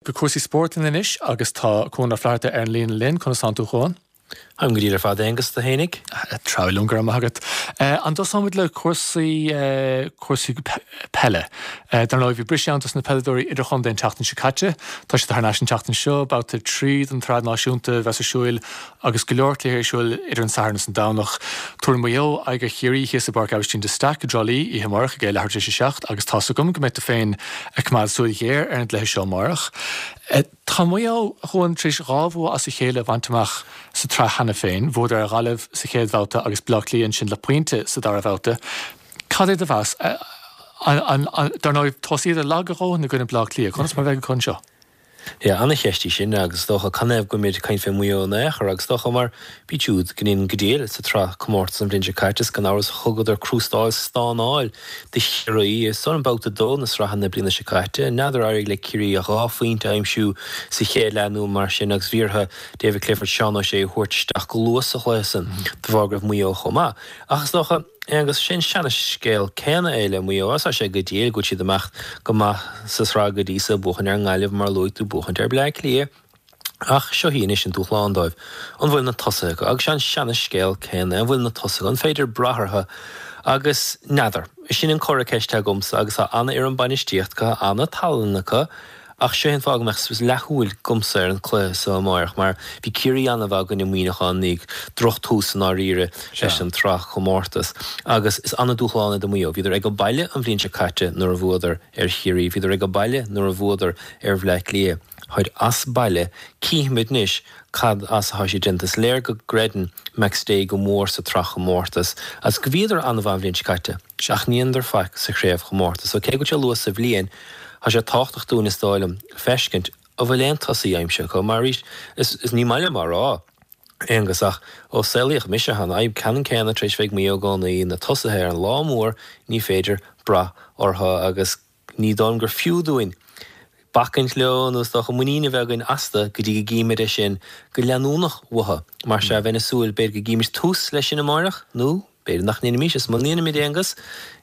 Go cúrsaí spóirt linn anois agus tá Cuan Ó Flatharta ar an líne linn. Conas tánn tú, a Chuain? Táim go diail ar fad, Aonghus, tú fhéinig? Treabhadh liom, go raibh maith agat. An dtosóimid le cúrsaí, cúrsaí peile? Dar ndóigh, bhí briseadh ann dos na peileadóirí idirchontae an tseachtain seo caite. Tá siad thar n-ais an tseachtain seo, babhta 3 den tsraith náisiúnta a bheas ar siúil agus go leor cluichí ar siúl idir an Satharn is an Domhnach. Tabharfaidh Maigh Eo aghaidh ar Chiarraí thíos i bPáirc Aibhistín de Staic i dTrá Lí oíche amárach ag a leathuair tar éis a 7 agus tá's agam go mbeidh tú féin ag coimeád súil ghéar ar an gcluiche seo amárach. Tá Maigh Eo, a Chuain, tar éis 2 bhua as a chéile a bhaint amach sa tsraith cheana féin. Bhuadar ar Ghaillimh sa chéad bhabhta agus Baile Átha Cliath ansin le pointe sa dara babhta. Cad é do mheas? Dar ndóigh, thosaíodar lag a dhóthain i gcoinne Baile Átha Cliath. Conas mar a bheidh acu anseo? Yeah, ana-cheist í sin agus is dócha canathaobh go bhfuilimid ag caint fé Mhaigh Eo in aon chor agus is dócha mar b'iad siúd go ndéanann go diail sa tsraith comórtas an bhliain seo caite is gan amhras thugadar crústáil stánáil do Chiarraí i san babhta 2 na sraithe na bliana seo caite. N'fheadar ar éirigh le Ciarraí ach 2 phointe a aimsiú sa chéad leath nó mar sin agus bhí orthu David Clifford, Seán O'Shea a thabhairt isteach go luath sa chluiche san de bharr go raibh Maigh Eo chomh maith. Ach is dócha. Aonghus, Sé an seana-scéal céanna é le Maigh Eo. Tá sé go diail go bhfuil siad ag imeacht go maith sa tsraith go dtí so, buachaint ar an nGaillimh mar a luaigh tú, buachaint ar Bleá Cliath. Ach seo í anois an dúshlán dóibh. An bhfuil na tosaithe acu? Agus sé an seana-scéal céanna é, an bhfuil na tosaithe acu? An féidir brath orthu? Agus n'fheadar. Sin an comhartha ceiste agamsa agus tá ana-fhoireann bainistíochta acu, tá ana-tallann acu. Ach seo é an fáth go mbeadh leathshúil agamsa ar an cluiche so amáireach, mar bhí Ciarraí an-mhaith i gcoinne Muineacháin, ní droch-tús i ndáiríre leis an tsraith chomórtas. Agus is an-dúshlán é do Mhaigh Eo. Bhíodar ag baile an bhliain seo caite nuair a bhuadar ar Chiarraí. Bhíodar ag baile nuair a bhuadar ar Bhleá Cliath. Táid as baile. Cífimid anois cad as atá siad déanta. Is léir go gcreideann McStay go mór sa tsraith chomórtas agus go bhíodar an-mhaith an bhliain seo caite. Ach ní dhéanadar faic sa chraobhchomórtas. So cé go bhfuil sé luath sa bhliain, tá sé tábhachtach dúinn is dóigh liom feiscint an bhfuil aon tosaí aimsithe acu. Mar arís, is, is ní maith liom á rá, Aonghus, ach ó saolaíodh mise tá an fhadhb ceannann céanna tar éis bheith ag Maigh Eo i gcónaí, na tosaithe ar an lá mór ní féidir brath orthu agus ní dóigh liom gur fiú dúinn bacaint leo nó is dócha muinín a bheith againn astu go dtí go gcímid é sin go leanúnach uathu. Mar sea, bheinn ag súil, b'fhéidir go gcímid tús leis sin amáireach nó b'fhéidir nach ndéanfaimis, is muna ndéanaimid, Aonghus,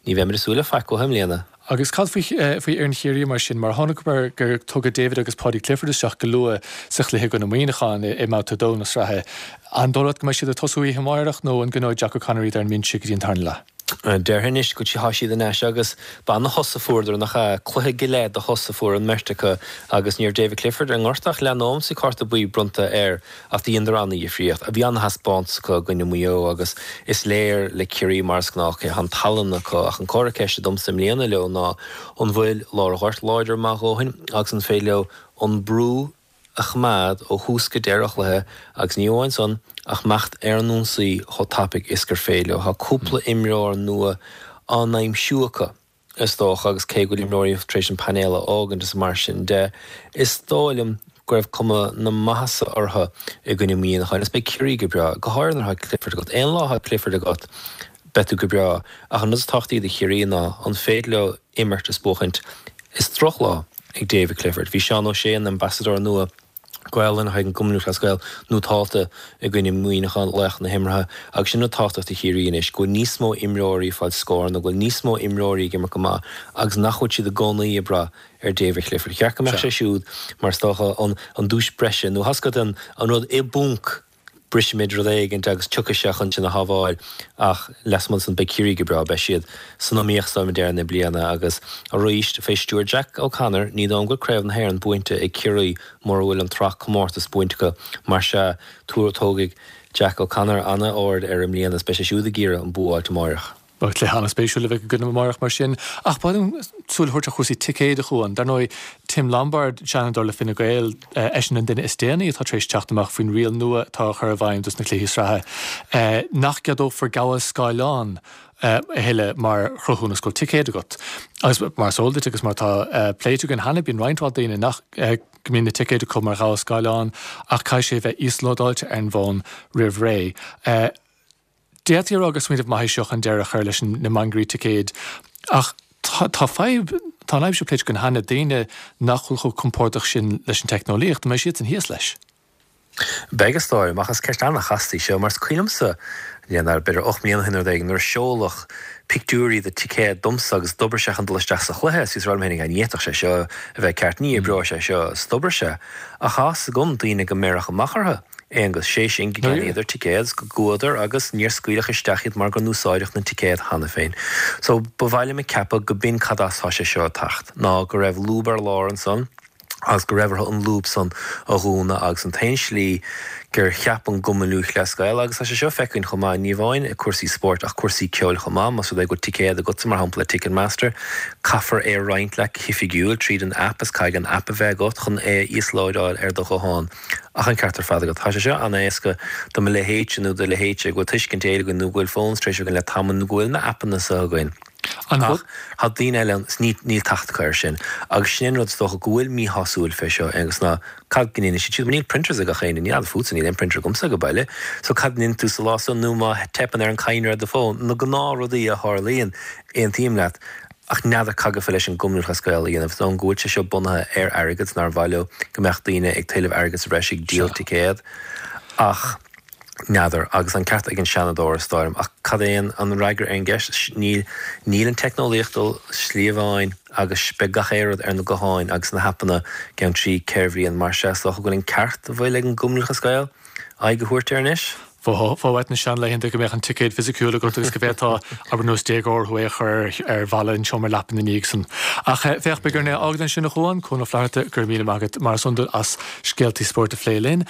ní bheimid ag súil le faic uathu i mbliana. Agus cad faoi faoi fhoireann Chiarraí mar sin? Mar chonaiceamar gur tugadh David agus Paudie Clifford isteach go luath sa chluiche i gcoinne Muineacháin i mbabhta 2 na sraithe. An dóigh leat go mbeidh siad ag tosú oíche amárach nó an gcoinneoidh Jack O'Connor iad ar an mbinse go dtí an tarna leath? Déarfainn anois go tá siad in ais agus b'ana-shos a fuaireadar, nach ea? Cluiche go leith de shos a fuair an mbeirt acu agus ní raibh David Clifford ar an ngort ach leath nóiméad is bhí cárta buí bronnta air ach do dheineadar ana-dhifríocht. Bhí ana-thaispeántas acu i gcoinne Mhaigh Eo agus is léir le Ciarraí mar is gnách tá an tallann acu ach an comhartha ceiste domsa i mbliana leo ná an bhfuil lár an ghoirt láidir maith a dhóthain agus an féidir leo an brú a choimeád ó thús go deireadh an chluiche agus ní amháin san ach imeacht ar an ionsaí chomh tapaidh is gur féidir leo. Tá cúpla imreoir nua á n-aimsiú acu is dócha agus cé go bhfuil imreoirí tar éis an painéal a fhágaint is mar sin de, is dóigh liom go raibh cuma na maitheasa orthu i gcoinne Mhuineacháin agus beidh Ciarraí go breá, go háirithe nuair atá Clifford agat. Aon lá atá Clifford agat beidh tú go breá ach an rud is tábhachtaí do Chiarraí ná an féidir leo imirt is buachaint. Is drochlá ag David Clifford. Bhí Seán O'Shea, an Ambasadóir nua Gaelainne chuig an gCumann Lúthchleas Gael, nótálta i gcoinne Mhuineacháin, laoch na himeartha, agus sin rud tábhachtach do Chiarraí anois, go bhfuil níos mó imreoirí ag fáil scóranna, go bhfuil níos mó imreoirí ag imirt go maith agus nach bhfuil siad i gcónaí ag brath ar David Clifford. Cheart go mbeadh sé siúd mar is dócha an duais breise nó tá a fhios agat an rud i bponc brisfimid rud éigint agus tiocfaidh sé chun sinn a shábháil ach lasmuigh de san beidh Ciarraí go breá, beidh siad san iomaíocht is dóigh liom ag deireadh na bliana agus arís fé stiúir Jack O'Connor ní dóigh liom go bhfuil Craobh na hÉireann buainte ag Ciarraí mura bhfuil an tsraith comórtas buainte acu mar sea tógfaidh Jack O'Connor ana-aird air i mbliana is beidh sé siúd ag iarraidh an bua a fháilt amáireach. Beidh cluiche an-spéisiúil a bheidh againn amárach mar sin. Ach ba mhaith liom súil a thabhairt ar chúrsaí ticéid, a Chuain. Dar ndóigh, Tim Lombard, Seanadóir le Fine Gael, eisean an duine is déanaí atá tar éis teacht amach faoin riail nua atá á chur i bhfeidhm dos na cluichí sraithe, nach gceadófar gabháil scáileáin a thuilleadh mar chruthúnas go bhfuil ticéad agat. Agus mar is eol duit agus mar atá pléite againn cheana, bíonn roinnt mhaith daoine nach go mbíonn na ticéid acu mar ghabháil scáileáin ach caithfidh sé a bheith íoslódáilte ar an bhfón roimh ré. D'fhéadfaí a rá gur smaoineamh maith é seo chun deireadh a chur leis na mangairí ticéid ach tá fadhb, tá an fhadhb seo pléite againn cheana, daoine nach bhfuil chomh compordach sin leis an teicneolaíocht, an mbeidh siadsan thíos leis? Beidh, is dóigh liom, ach is ceist an-chasta í seo, mar is cuimhin liomsa, n'fheadar, b'fhéidir 8 mbliana ó shin nó rud éigin, nuair a seoladh pictiúirí de ticéad domsa agus d'oibrigh sé chun dul isteach sa chluiche, is bhíos ag rá liom féinig, ní fhéadfadh sé seo a bheith ceart, ní oibreoidh sé seo, is d'oibrigh sé. Ach tá fhios agam daoine go mbeireadh amach orthu, Aonghus, sé sin go gceannaíodar ticéad is go gcuadar agus níor scaoileadh isteach iad mar go n-úsáideadh na ticéad cheana féin. So, ba mhaith liom a ceapadh go b'in cad as tá sé seo ag teacht, ná go raibh lúb ar lár ansan, agus go raibh orthu an lúb san a dhúnadh agus an t-aon slí gur cheap an gCumann Lúthchleas Gael, agus tá sé seo feicthe againn chomh maith, ní amháin i cúrsaí spóirt ach cúrsaí ceoil chomh maith, más rud é go bhfuil ticéad agatsa mar shampla le Ticketmaster, caithfear é a roinnt leat go hoifigiúil tríd an aip is caithfidh an aip a bheith agat chun é a íoslódáil ar do ghuthán. Ach an ceart ar fad agat, tá sé seo an-éasca do mo leithéidse nó do leithéidse go bhfuil tuiscint éigin againn nó go bhfuil phones tar éis againn le tamall nó go bhfuil na aipeanna seo againn. Ach tá daoine eile ann is níl teacht acu air sin. Agus sin é an rud is dócha go bhfuil míshásúil fé seo, Aonghus, ná cad go ndéanfaidh siad siúd, mar níl printers ag gach éinne, ní fheadar fútsa, níl aon printer agamsa ag baile. So cad a ndéanfaidh tú sa lá san nó má teipeann ar an cadhnra ar do fón, na gnáthrudaí a tharlaíonn, aontaím leat. Ach n'fheadar cad go féidir leis an gCumann Lúthchleas Gael a dhéanamh, is dóigh liom go bhfuil sé seo bunaithe ar airgead, nár mhaith leo go mbeadh daoine ag tuilleamh airgead sa bhreis ag díol ticéad. Ach. N'fheadar, agus an ceart ag an Seanadóir, is dóigh liom. Ach cad é an fhreagra ar an gceist? Níl, níl an teicneolaíocht dul slí amháin agus beidh gach aon rud ar na gutháin agus na haipeanna i gceann 3, 4 bhliain. Mar sea, is dócha go bhfuil an ceart a bhfuil ag an gCumann Lúthchleas Gael aghaidh a thabhairt air anois. Bheifeá uait na seanlaethanta go mbeadh an ticéad fisiciúil agat agus go bhféadfá, abair nós déagóir thú é a chur ar bhalla an tseomra leapa ina dhiaidh san. Ach féach, beidh orainn é a fhágáil ansin a Chuain, Cuan Ó Flatharta, go raibh míle maith agat mar is iondúil as scéaltaí spóirt a phlé linn.